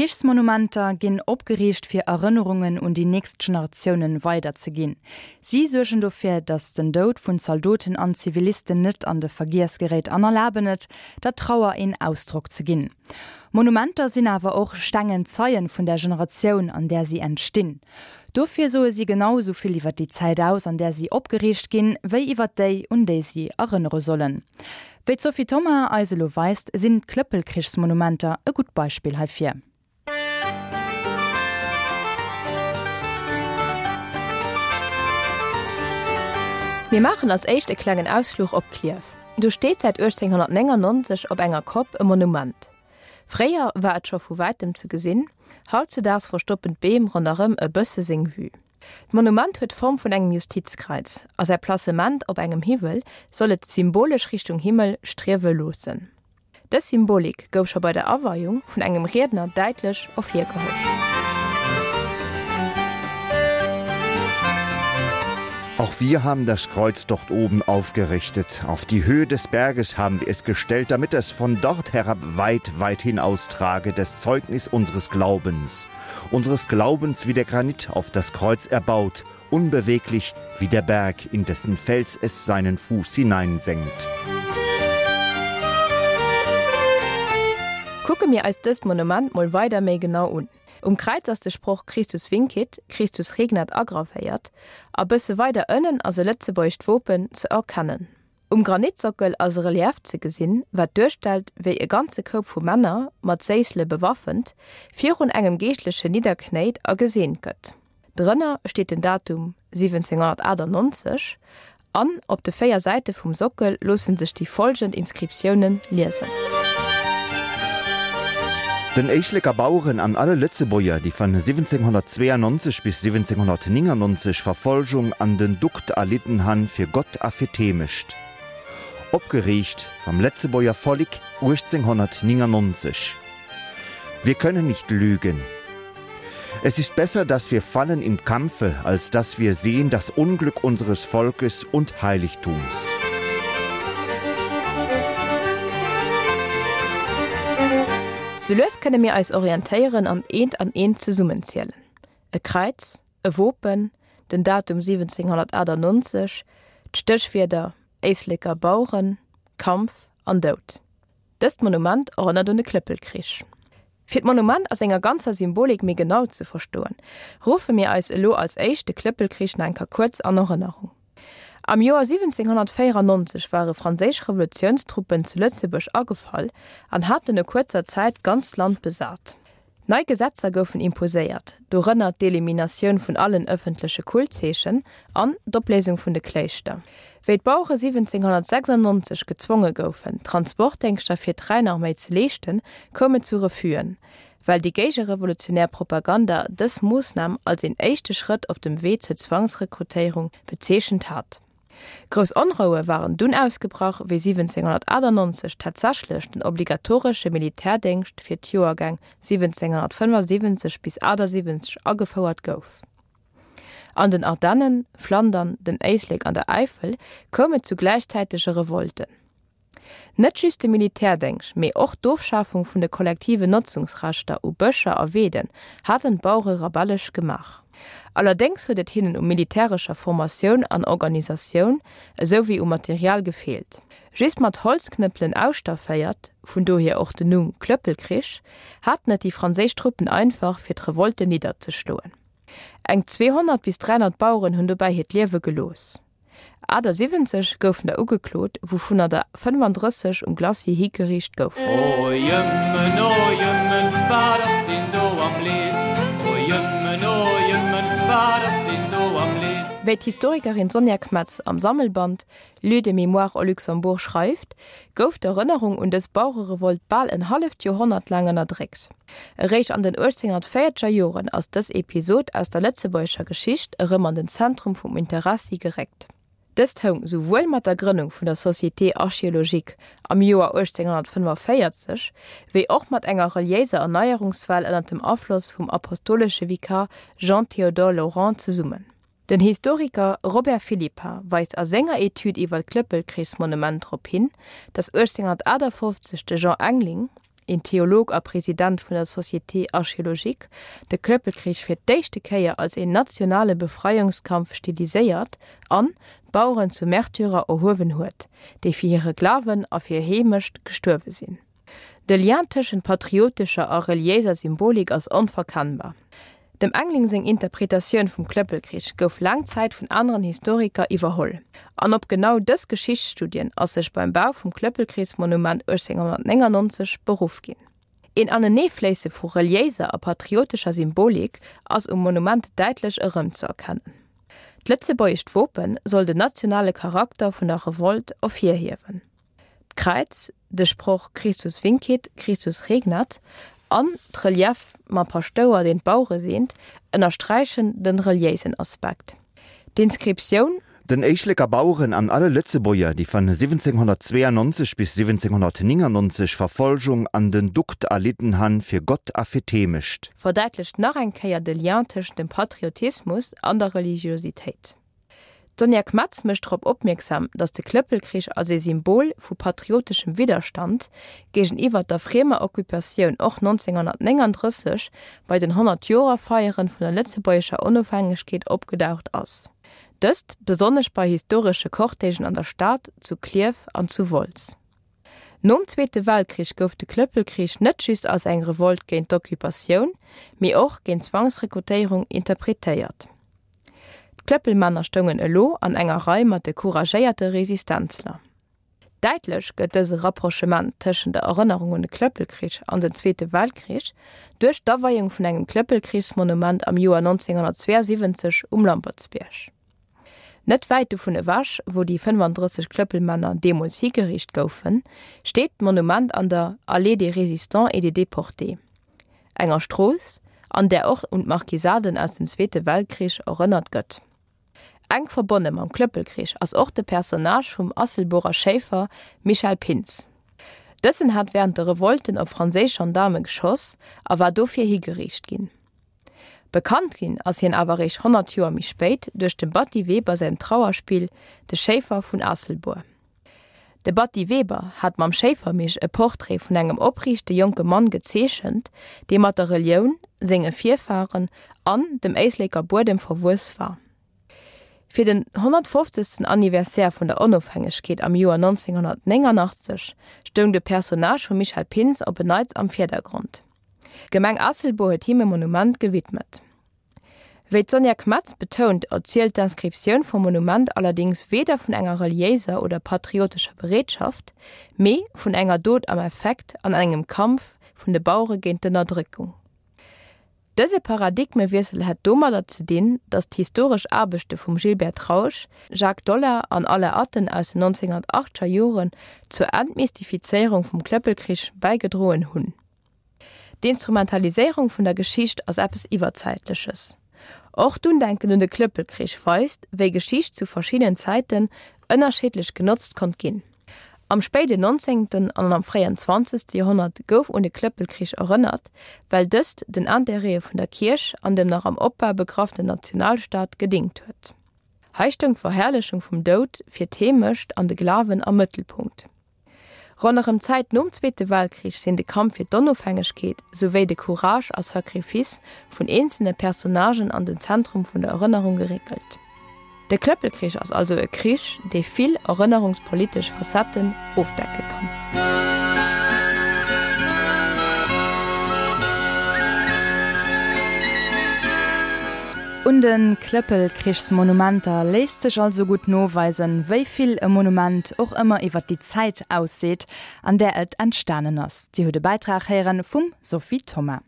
Krichsmonumenter ginn opgeriicht fir Erënnerungen un déi nächst Generatiounen weider ze ginn. Si suergen dofir, datt den Doud vun Zaldoten an Zivilisten net an de Vergiess geréit an erlaben et, der Trauer een Ausdrock ze ginn. Monumenter sinn awer och stengen Zeien vun der Generatioun, an där si entstinn. Dofir soe si genau esou vill iwwer déi Zäit aus, an där si opgeriicht ginn, wéi iwwer déi, un déi si erënnere sollen. Wéi d'Sophie Thoma eis elo weist, sinn d'Klëppelkrichsmonumenter e gutt Beispill heifir. Mir maachen als éischt e klengen Ausfluch op Klierf. Do steet säit 1899 op enger Kopp e Monument. Fréier war et scho vu wäitem ze gesinn, hautzedaags verstoppen d'Beem ronderëm e bësse seng Vue. D'Monument huet d'Form vun engem Justizkreiz a säi Placement op engem Hiwwel soll et symbolesch Richtung Himmel striewe loossen. Dës Symbolik gouf scho bei der Aweiung vun engem Riedner däitlech ervirgeholl. Auch wir haben das Kreuz dort oben aufgerichtet. Auf die Höhe des Berges haben wir es gestellt, damit es von dort herab weit, weit hinaustrage das Zeugnis unseres Glaubens. Unseres Glaubens wie der Granit auf das Kreuz erbaut, unbeweglich wie der Berg, in dessen Fels es seinen Fuß hineinsenkt. Kucke mir eis dëst Monument mol weider méi genau un. Um Kräiz ass de Sproch Christus vincit, Christus regnat agravéiert a bësse weider ënnen ass e lëtzebuergescht Wopen ze erkennen. Um Granitsockel ass e Relief ze gesinn, wat duerstellt, wéi e ganze Koup vu Männer, mat Séissele bewaffent, virun engem Geeschtlechen nidderknéit a geseent gëtt. Drënner steet den Datum 1798 an op de 4 Säite vum Sockel loosse sech déi follgend Inscriptiounen liesen. Den Éisleker Baueren an alle Lëtzebuerger, déi van 1792 bis 1799 Verfolgung an den Dukt erlidden han fir Gott a fir d'Heemecht. Opgeriicht vam Lëtzebuerger Vollik 1899. Wir können nicht lügen. Es ist besser, dass wir fallen im Kampfe, als dass wir sehen das Unglück unseres Volkes und Heiligtums. Sou lues kënne mir eis orientéieren an eent an eent zesummenzielen, e Kräiz, e Wopen, den Datum 1798, d'Stéchwierder Éisleker Baueren, Kampf an Doud. Dëst Monument erënnert un de Klëppelkrich. Fir d'Monument a senger ganzer Symbolik méi genau ze verstoen, ruffe mir eis elo als éischt de Klëppelkrich nach eng Kéier kuerz an Erënnerung. Am Joer 1794 ware franséisch Revolutiounstruppen zu Lëtzebuerg agefall an haten no kuerzer Zäit d'ganzt Land besat. Nei Gesetzer goufen imposéiert, dorënner d'Eliminatioun vun allen ëffentleche Kultzeechen an d'Opléisung vun de Kléischter. Wéi d'Bauere 1796 gezwonge goufen, Transportdéngschter fir d'Rhäinarméi ze leeschten, koum et zu Refus'en, well déi géigerevolutionär Propaganda dës Moossnam als een éischte Schrëtt op dem Wee zur Zwangsrekrutéierung bezeechent hat. Grouss Onroue waren dunn ausgebrach, wéi 1798 tatsächlech den obligatoresche Militärdéngscht fir d'Joergäng 1775 bis 78 agefouert gouf. An den Ardennen, Flandern, dem Éislek an der Äifel koum et zu gläichzäitege Revolten. Net just de Militärdéngscht, mee och d'Ofschafung vun de kollektiven Notzungsrechter u Bëscher a Weeden haten d'Bauere rebellesch gemaach. Allerdéngs huet et hinnen u militärescher Formatioun an Organisatioun esou wéi u Material gefeelt. Just mat Holzknëppelen ausstafféiert, vun dohier och den Numm Klëppelkrich, haten et déi franséisch Truppen einfach, fir d'Revolte nidderzeschloen. Eng 200 bis 300 Baueren hunn dobäi hiert Liewe gelooss. 78 goufen der ugeklot, wouvunner der 35 um Glacis higeriicht goufen. O Jëmmen, o Jëmmen, wat ass deen do am leefst? O Jëmmen, o Jëmmen, wat ass deen do am leefst? Wéi d'Historikerin Sonja Kmetz am Sammelband Lieux de mémoire au Luxembourg schreift, gouf d'Erënnerung un dës Bauererevolt bal en halleft Joerhonnert laang ënnerdréckt. Eréischt an den 1840er Joren ass dës Episod aus der lëtzebuergescher Geschicht erëm an den Zentrum vum Interessi geréckt. Dëst houng souwuel mat der Grënnung vun der Société archéologique am Joer 1845, wéi och mat enger reliéiser Erneierungswell ënner dem Afloss vum apostolesche Vikar Jean-Théodore Laurent zesummen. Den Historiker Robert Philippart weist a senger Etüd iwwer d'Klëppelkrichsmonument drop hin, datt 1858 de Jean Engling. een Theolog a President vun der Société archéologique, de Klëppelkrich fir d'éischte Kéier als een nationale Befreiungskampf stiliséiert an d'Baueren zu Märtyrer erhuewen huet, déi fir hire Glawen a fir hir Heemecht gestuerwe sinn. De Lien tëschent patriotescher a reliéiser Symbolik ass onverkennbar. Dem Engling seng Interpretatioun vum Klëppelkrich gouf laang Zäit vun aneren Historiker iwwerholl. An op genau dës Geschichtsstudien ass sech beim Bau vum Klëppelkrichsmonument 1899 beruff ginn. Een Aneneefléisse vu reliéiser a patriotescher Symbolik ass um Monument däitlech erëmzeerkennen. D'lëtzebuergescht Wope soll den nationale Charakter vun der Revolt ervirhiewen. D'Kräiz, de Sproch Christus vincit, Christus regnat an d'Relief mam Paschtouer, deen d'Bauere seent, ënnersträichen de reliéisen Aspekt. D'Inscriptioun. Den Éisleker Baueren an alle Lëtzebuerger, déi van 1792 bis 1799 Verfolgung an den Dukt erlidden han, fir Gott a fir d'Heemecht. Verdäitlecht nach eng Kéier de Lien tëschent dem Patriotismus an der Religiositéit. D'Sonja Kmetz mécht drop opmierksam, datt de Klëppelkrich als ee Symbol vu patrioteschem Widderstand géigeniwwer der friemer Occupatioun och 1939 bei den 100-Joer-Feieren vun der lëtzebuergescher Onofhängegkeet opgedaucht ass. Dëst besonnesch bei historesche Cortègen an der Stad, zu Klierf an zu Wolz. Nom Zweete Weltkrich gouf de Klëppelkrich net just als eng Revolt géint d'Occupatioun, mee och géint d'Zwangsrekrutéierung interpretéiert. D'Klëppelmänner stoungen elo an enger Rei mat de couragéierte Resistenzler. Däitlech gëtt dëse Rapprochement tëschent der Erënnerung un de Klëppelkrich an den Zweete Weltkrich duerch d'Aweiung vun engem Klëppelkrichsmonument am Joer 1972 um Lampertsbierg. Net wäit dovun ewech, wou déi 35 Klëppelmänner deemools higeriicht goufen, steet d'Monument an der Allée des Résistants et des Déportés. Enger Strooss, an där och un d'Marquisaden aus dem Zweete Weltkrich erënnert gëtt. Enk verbonne mam Klëppelkrich ass och de Personnage vum Asselborer Schéifer Michel Pintz. Dësen hat wärend de Revolten op franséisch Gendaarme geschoss a war dofir higeriicht ginn. Bekannt ginn ass hien awer eréischt 100 Joer méi spéit duerch dem Batty Weber säin Trauerspill De Schéifer vun Aasselbuer. De Batty Weber hat mam Schéifermich e Portrait vun engem opriichte jonke Mann gezeechent, dee mat der Relioun, senge Virfaren an dem Éisleker Buedem verwuess war. Fir den 150. Anniversaire vun der Onofhängegkeet am Joer 1989 stoung de Personnage vum Michel Pintz op en Neits am Virdergrond. D'Gemeng Aasselbuer huet him e Monument gewidmet. Wéi d'Sonja Kmetz betount, erzielt d'Inscriptioun vum Monument allerdéngs weder vun enger reliéiser oder patriotescher Bereetschaft, mee vun enger Dot am Effekt an engem Kampf vun de Bauere géint d'Ënnerdréckung. Dëse Paradigmewiessel hätt domadder ze dinn, datt d'historesch Aarbechte vum Gilbert Trausch, Jacques Dollar an Alain Atten aus den 1980er Joren zur Entmystifizéierung vum Klëppelkrich bäigedroen hunn. D'Instrumentaliséierung vun der Geschicht ass eppes Iwwerzäitleches. Och d'Undenken un de Klëppelkrich weist, wéi Geschicht zu verschiddenen Zäiten ënnerschiddlech genotzt konnt ginn. Am spéiden nonzéngten an am fréien zwanzegste Joerhonnert gouf un de Klëppelkrich erënnert, well dëst den Intérêtë vun der Kierch an dem nach am Opbau begraffenen Nationalstaat gedéngt huet. Hei stoung d'Verherrlechung vum Doud fir d'Heemecht an de Glawen am Mëttelpunkt. Ronderëm d'Zäit nom Zweete Weltkrich sinn de Kampf fir d'Onofhängegkeet souwéi de Courage a Sacrifice vun eenzele Personnagen an den Zentrum vun der Erënnerung geréckelt. De Klëppelkrich ass also e Krich, dee vill erënnerungspolitesch Facetten ofdecke kann. Un de Klëppelkrichsmonumenter léisst sech also gutt noweisen, wéi vill e Monument och ëmmer iwwer déi Zäit ausseet, an där et entstanen ass. Dir hutt e Bäitrag héieren vum Sophie Thoma.